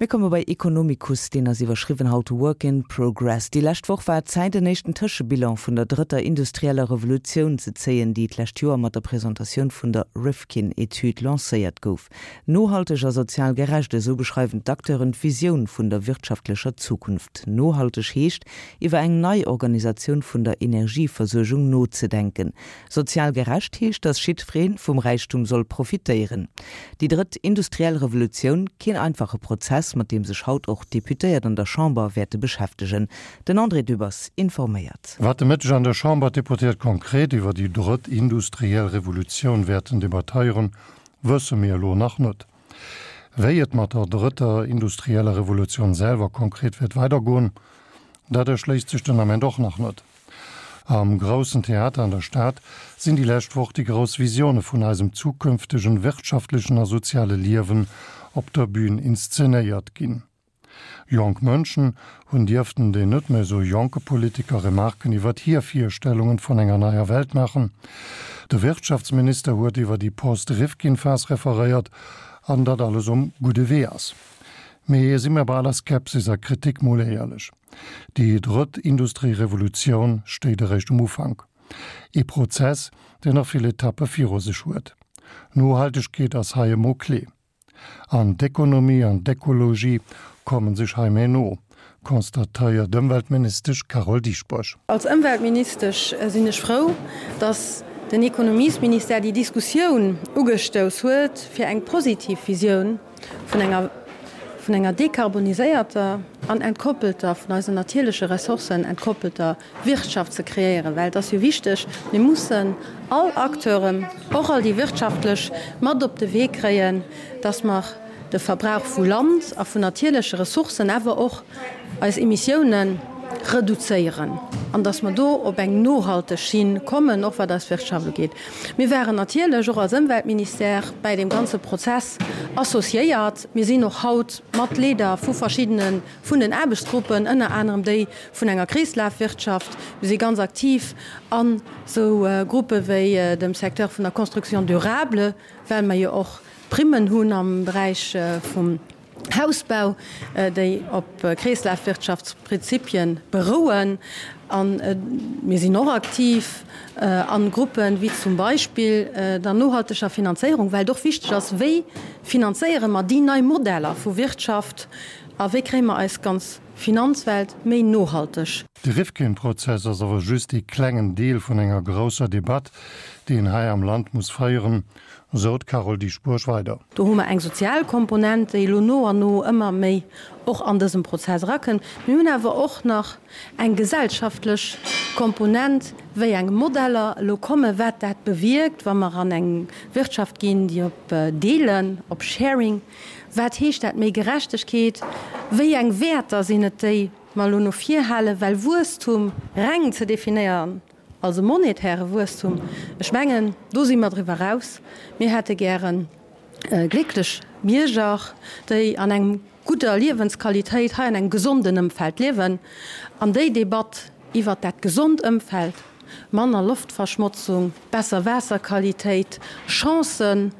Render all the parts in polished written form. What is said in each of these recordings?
Mir komme bei Economicus, deen ass iwwerschriwwen haut Work in Progress. Déi lescht Woch war et Zäit, en éischten Tëschebilan vun der drëtter industrieller Revolutioun ze zéien, déi d'lescht Joer mat der Presentatioun vun der Rifkin-Etüd lancéiert gouf. Nohalteg a sozial gerecht, esou beschreiwen d'Acteuren d'Visioun vun der wirtschaftlecher Zukunft. Nohalteg heescht, iwwer eng nei Organisatioun vun der Energieversuergung nozedenken. Sozial gerecht heescht, datt jiddweree vum Räichtum soll profitéieren. Déi drëtt industriell Revolutioun, keen einfache Prozess, mat deem sech haut och d'Deputéiert an der Chamber wäerte beschäftegen. Den André Dübbers informéiert. Wat de Mëtteg an der Chamber d'Deputéiert konkret iwwer déi drëtt industriell Revolutioun wäerten debattéieren, wësse mir elo nach net. Wéi et mat der drëtter industrieller Revolutioun selwer konkret wäert weidergoen, dat erschléisst sech den Ament och nach net. Am Groussen Theater an der Stad sinn déi lescht Woch déi grouss Visioune vun eisem zukünftegen wirtschaftlechen a soziale Liewen op der Bühn inszenéiert ginn. Jonk Mënschen hunn dierften den net méi esou jonke Politiker Remarken iwwert hir Virstellungen vun enger neier Welt maachen. De Wirtschaftsminister huet iwwer déi Post-Rifkin-Phas referéiert an datt alles um gudde Wee ass. Mee si mir bei aller Skepsis a Kritik mol éierlech. Déi drëtt Industrierevolutioun stéit eréischt um Ufank. Ee Prozess, deen nach vill Etappe viru sech huet. Nohaltegkeet ass hei e Mot clé. An d'Ekonomie an d'Ekologie komme sech hei méi no, constatéiert d'Ëmweltministesch Carole Dieschbourg. Als Ëmweltministesch sinn ech frou, datt den Ekonomiesministère déi Diskussioun ugestouss huet, fir eng positiv Visioun vun enger vun enger dekarboniséierter an entkoppelter, vun eisen natierleche Ressourcen entkoppelter Wirtschaft ze kreéieren, well et ass jo wichteg, mir mussen all Acteuren, och all déi wirtschaftlech, mat op de Wee kréien, dass mer de Verbrauch vu Land a vun natierleche Ressourcen, awer och eis Emissiounen reduzéieren an dass mer do op eng nohalteg Schinn kommen, och wat eis Wirtschaft ugeet. Mir waren natierlech och als Ëmweltministère bäi deem ganze Prozess associéiert. Mir sinn och haut mat Leader vu verschiddene vun den Aarbechtsgruppen, ënner anerem déi vun enger Kreeslafwirtschaft. Mir si ganz aktiv an esou Gruppe wéi dem Secteur vun der Construction durable, well mer jo och Primmen hunn am Beräich vum Hausbau, déi op Kreeslafwirtschaftsprinzipie berouen. A mir sinn och aktiv a Gruppen, wéi zum Beispill der nohalteger Finanzéierung, well et och wichteg ass, Wéi finanzéiere mer déi nei Modeller vu Wirtschaft a wéi kréie mer eis ganz Finanzwelt méi nohalteg? De Rifkin-Prozess ass awer just ee klengen Deel vun enger grousser Debatt, déi een hei am Land muss féieren, Sou d'Carole Dieschbourg weider. Do hu mer eng sozial Komponent, déi elo no an no ëmmer méi och an dësem Prozess erakënnt. Mir hunn awer och nach eng gesellschaftlech Komponent, wéi eng Modeller elo kommen, wat dat bewierkt, wa mer an eng Wirtschaft ginn, déi op Deelen, op Sharing, wat heescht dat, méi Gerechtegkeet, wéi eng Wäerter sinn et, déi mer elo no vir halen, well Wuesstum reng ze definéieren, Als e monetäre Wuesstum, ech mengen, do si mer driwwer eraus. Mir hätte gäre glécklech Bierger, déi an engem gudder Liewensqualitéit hei an engem gesonden Ëmfeld liewen. An déi Debatt iwwert dat gesond Ëmfeld, manner Loftverschmotzung, besser Waasserqualitéit, Chancen,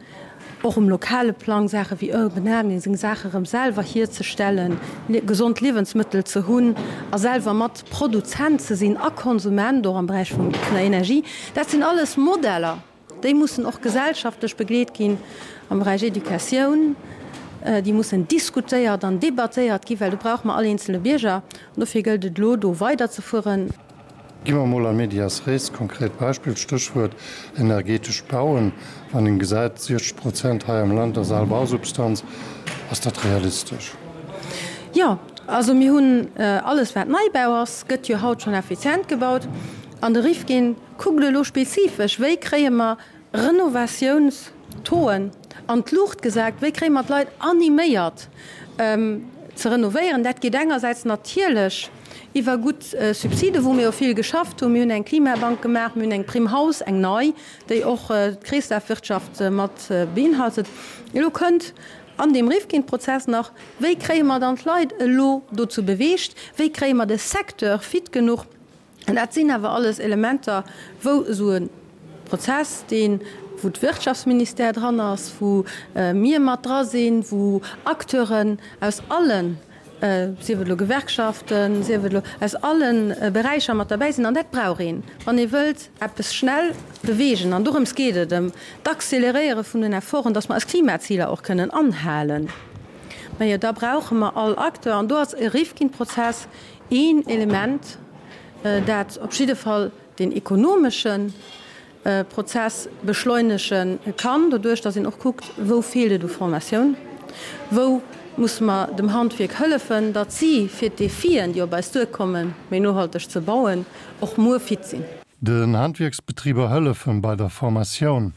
och um lokale Plang Saache wéi Urban Gardening, seng Saache rëm selwer hierzestellen, gesond Liewensmëttel ze hunn a selwer mat Produzent ze sinn a Konsument, och am Beräich vun der Energie. Dat sinn alles Modeller, déi mussen och gesellschaftlech begleet ginn am Beräich Educatioun. Déi mussen diskutéiert an debattéiert ginn, well do brauche mer all eenzele Bierger. An dofir gëllt et elo, do weiderzefueren. Gi mer emol a medias res, konkret Beispill, Stéchwuert energetescht Bauen. Wann een gesäit, 60 Prozent hei am Land ass al Bausubstanz, ass dat realistesch? Jo, also mir hunn alles wat Neibau ass, gëtt jo haut schonn effizient gebaut. An de Rifkin kuckt elo spezifesch, wéi kréie mer Renovatiouns-Tauxen an d'Luucht gesat, wéi kréie mer d'Leit animéiert ze renovéieren. Dat geet engersäits natierlech iwwer gutt Subside, wou mir jo vill geschafft hunn. Mir hunn eng Klimabank gemaach, mir hunn eng Prime Haus, eng nei, déi och d'Kreeslafwirtschaft mat beinhaltet. Elo kënnt an deem Rifkin-Prozess nach, Wéi kréie mer dann d'Leit elo dozou beweegt? Wéi kréie mer de Secteur fit genuch? An dat sinn awer alles Elementer, wou esou e Prozess, dee. wou d'Wirtschaftsministère dran ass, wou mir mat dra sinn, wou Acteuren aus allen, sief et elo Gewerkschaften, sief et elo aus alle Beräicher mat derbäi sinn. An dat brauch een, wann ee wëllt eppes schnell beweegen. An dorëms geet et, ëm d'Accéléréiere vun den Efforten, dass mer eis Klimaziler och kënnen anhalen. Majo, da brauche mer all Acteur. An do ass e Rifkin-Prozess een Element, dat op jidde Fall deen ekonomesche Prozess beschleunege kann, doduerch datt een och kuckt, wou feelt et u Formatioun, wou musse mer dem Handwierk hëllefen, datt si fir d'Defien, déi op eis duerkommen, méi nohalteg ze bauen, och muer fit sinn. Den Handwierksbetriber hëllefen bei der Formatioun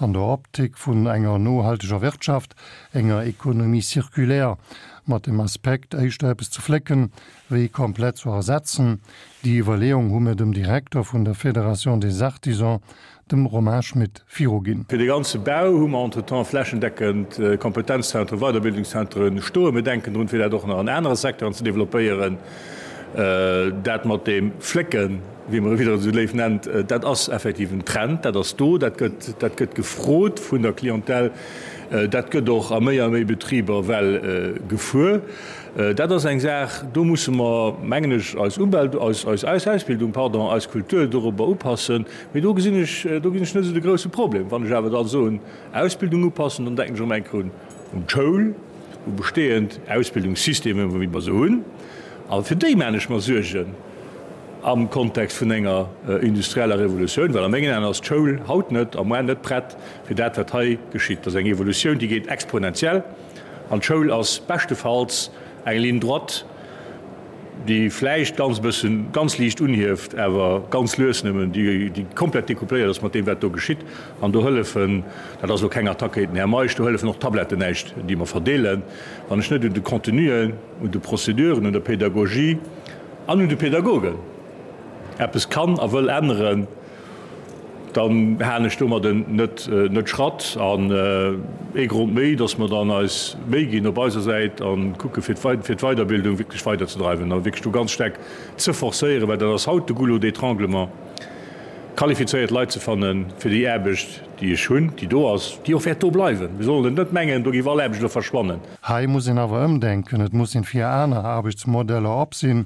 an der Optik vun enger nohalteger Wirtschaft, enger Économie circulaire, mat dem Aspekt éischter eppes ze flécken, wéi komplett zu ersetzen. Déi Iwwerleeung hu mir dem Direkter vun der Fédération des Artisans, dem Romain Schmit, viruginn. Fir de ganze Bau hu mer entretemps flächendeckend Kompetenzzentren, Weiderbildungszentren stoen. Mir denken drun, fir dat och nach an anere Secteuren ze développéieren. Dat mat deem Flécken, wéi mer e widder esou léif nennt, dat ass effektiv en Trend, dat ass do, dat gëtt, dat gëtt gefrot vun der Clientèle, dat gëtt och a méi a méi Betriber well gefuer. Dat ass eng Saach, do musse mer, mengen ech, eis Umwelt, eis, eis, eis Ausbildung, pardon, eis Kultur dorobber upassen. Mee do gesinn ech, do gesinn ech net esou de grouse Problem. Wann ech awer da soen, Ausbildung upassen, dann denken ech erëm eng Kéier un, un d'Schoul, u bestehend Ausbildungssystemen, wéi mer se hunn. A fir déi maan ech mer Suergen am Kontext vun enger industrieller Revolutioun, well a mengen Aen ass d'Schoul haut net a muar net prett fir dat, wat hei geschitt. Dat ass eng Evolutioun, déi geet exponentiell. An d'Schoul ass beschtefalls eng Ligne droite, déi vläicht ganz e bëssen, ganz liicht unhieft, awer ganz lues nëmmen, déi komplett decoupléiert ass mat deem, wat do geschitt. An do hëllefen, dat ass elo keng Attack géint den Här Meisch, do hëllefen och d'Tabletten näischt, déi mer verdeelen, wann ech net un de Contenuen, un de Prozeduren, un der Pédagogie an un de Pädagogen eppes kann a wëll änneren. Dann halen ech domadden net net Schratt. An ee Grond méi, dass mer dann eis Méi ginn op eiser Säit a kucke fir fir d'Weiderbildung wierklech weiderzedreiwen a wierklech do ganz staark ze forcéieren, well dat ass haut de Goulot d'étranglement, qualifizéiert Leit ze fanne fir déi Aarbecht, déi ech hunn, déi do ass, déi och wäert do bleiwen. Mir sollen et net mengen, do géif all Aarbecht elo verschwannen. Hei muss een awer ëmdenken, et muss een fir aner Aarbechtsmodeller op sinn,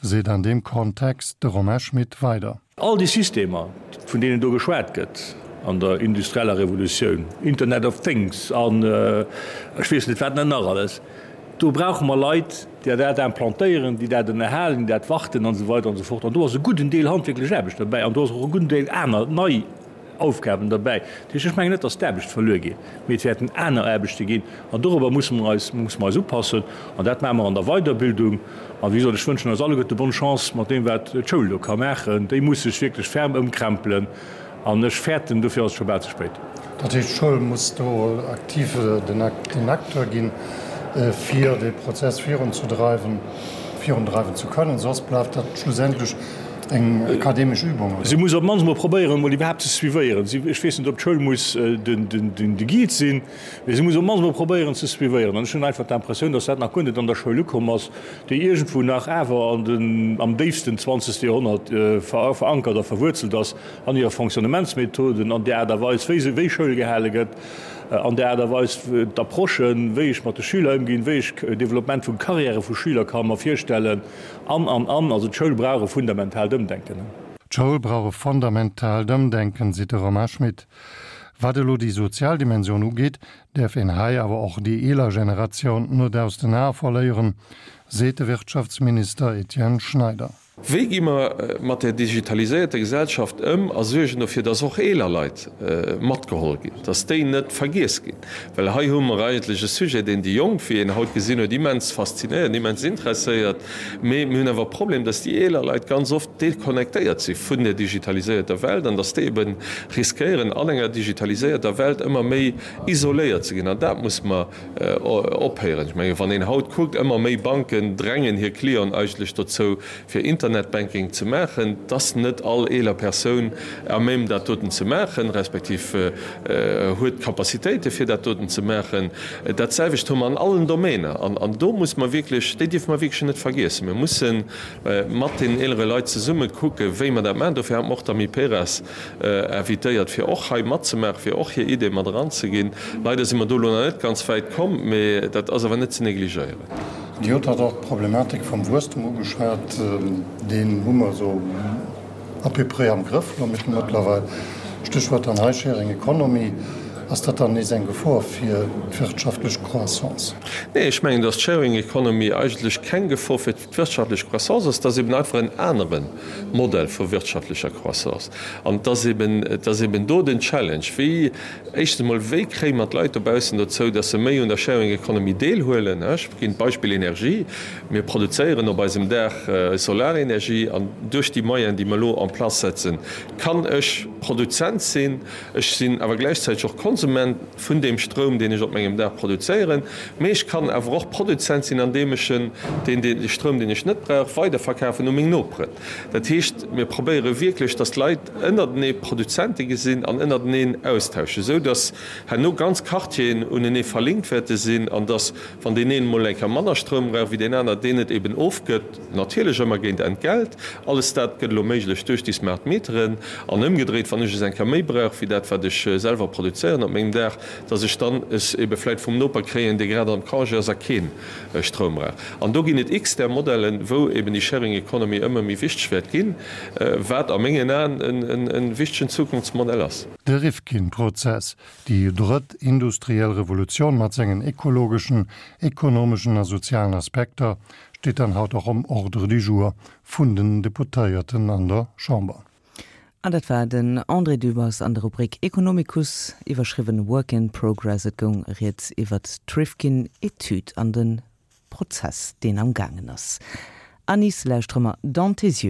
seet an deem Kontext de Romain Schmit weider. All déi Systemer, vun deenen do geschwat gëtt an der industrieller Revolutioun, Internet of Things an ech weess net wat nach alles, do brauche mer Leit, déi dat implantéieren, déi dat ënnerhalen, déi dat warten an esou weider an esou fort. An do ass e gudden Deel handwierklech Aarbecht derbäi an do ass och e gudden Deel aner nei Aufgaben derbäi. Dat heescht, ech mengen net, datt d'Aarbecht verluer geet, mee et wäerten aner Aarbechte ginn an dorobber musse mer eis, musse mer eis upassen an dat maache mer an der Weiderbildung. A wéi gesot, ech wënschen eis alleguerte bonne Chance mat deem, wat d'Schoul do ka maachen. Déi muss sech wierklech ferm ëmkrempelen an ech fäerten, dofir ass et scho bal ze spéit. Dat heescht, d'Schoul muss do aktiv den Acteur ginn, fir dee Prozess virunzedreiwen, virundreiwen ze kënnen, soss bleift dat schlussendlech Eng akademesch Übung, oder? Si muss op d'mannst emol probéieren, emol iwwerhaapt ze suivéieren. Si, ech weess net, ob d'Schoul muss den Guide sinn, mee si muss op d'mannst emol probéieren ze suivéieren. An ech hunn einfach d'Impressioun, datt dat nach guer net an der Schoul ukomm ass, déi iergendwou nach awer an den, am déifsten zwanzegste Joerhonnert verankert a verwuerzelt ass an hire Fonctionnementsmethoden, an der Aart a Weis, wéi se, wéi Schoul gehale gëtt, an der Aart a Weis, d'Approchen, wéi ech mat de Schüler ëmginn, wéi ech Développement vu Carrièrë vu Schüler ka mer virstellen. An, an, an, also d'Schoul brauch e fundamentaalt Ëmdenken. D'Schoul brauch e fundamentaalt Ëmdenken, seet de Romain Schmit. Wat elo déi sozial Dimensioun ugeet, däerf een hei awer och déi eeler Generatioun net aus den Ae verléieren, seet de Wirtschaftsminister Etienne Schneider. Wéi gi mer mat där digitaliséierter Gesellschaft ëm a suergen dofir, dass och eeler Leit matgeholl ginn, dass déi net vergiess ginn? Well hei hu mer eigentlech e Sujet, deen déi Jonk, wéi een haut gesinn huet, immens faszinéiert, immens interesséiert. Mee mir hunn awer e Problem, dass déi eeler Leit ganz oft deconnectéiert si vun der digitaliséierter Welt an dass déi ebe riskéieren, an enger digitaliséierter Welt ëmmer méi isoléiert ze ginn. An dat muss mer ophéieren. Ech mengen, wann een haut kuckt, ëmmer méi Banken drängen hir Clienten eigentlech dozou, fir Internet. Internetbanking ze maachen. Et ass net all eeler Persoun à même dat doten ze maachen, respektiv huet d'Capacitéite fir dat doten ze maachen. Dat selwecht hu mer an allen Domainer an do muss mer wierklech, déi dierfe mer wierklech net vergiessen. Mir musse mat deenen eelere Leit zesumme kucke wéi mer dat maachen. Dofir hat mer och d'Amiperas invitéiert fir och hei matzemaachen, fir och hir Ideeë mat eranzeginn. Leider si mer do elo nach net ganz wäit komm, mee dat ass awer net ze negligéieren. Dir hutt hatt och d'Problematik vum Wuesstem ugeschwat. Deen hu mer esou à peu près am Grëff elo mëttlerweil. Stéchwuert dann hei Sharing Economy. Ass dat dann nees eng Gefor fir d'wirtschaftlech Croissance? Nee, ech mengen, datt d'Sharing Economy eigentlech keng Gefor fir d'wirtschaftlech Croissance ass. Et ass eben einfach en anere Modell vu wirtschaftlecher Croissance. An et ass eben, et ass eben do den Challenge, wéi, éischtens emol, wéi kréie mer d'Leit dobaussen dozou, datt se méi un der Sharing Economy deelhuelen? Ech ginn d'Beispill Energie. Mir produzéieren op eisem Daach Solarenergie an duerch déi Moyenen, déi mer elo en place setzen, kann ech Produzent sinn. Ech sinn awer gläichzäiteg och Konsument vun deem Stroum, deen ech op mengem Daach produzéieren. Mee ech kann awer och Produzent sinn, andeem ech en, deen, dee Stroum, deen ech net brauch, weiderverkafen u meng Noperen. Dat heescht, mir probéiere wierklech, dass d'Leit ënnertenee Produzente gesinn an ënnerteneen austauschen, esou dass herno ganz Quartieren unenee verlinkt wäerte sinn an dass, Wann deen een emol eng Kéier manner Stroum brauch wéi deen aner, deen et eben ofgëtt, natierlech ëmmer géint Entgelt. Alles dat gëtt elo méiglech duerch déi smart Meteren. An ëmgedréit, wann ech es eng Kéier méi brauch wéi dat, wat ech selwer produzéieren op mengem Daach, dass ech dann es ebe vläicht vum Noper kréien, dee grad am Congé ass a kee Stroum brauch. An do ginn et x där Modellen, wou eben déi Sharing Economy ëmmer méi wichteg wäert ginn, wat a mengen Aen e wichtegen Zukunftsmodell ass. De Rifkin-Prozess, Déi drëtt industriell Revolutioun mat sengen ekologeschen, ekonomeschen a sozialen Aspekter steet dann haut och um Ordre du jour vun den Deputéierten an der Chamber. An dat war den André Dübbers an der Rubrik Economicus, iwwerschriwwen Work in Progress. Et goung rieds iwwert d'Rifkin-Etüd an de Prozess, deen am gaangen ass. Anis lauschtere mer Dans tes yeux.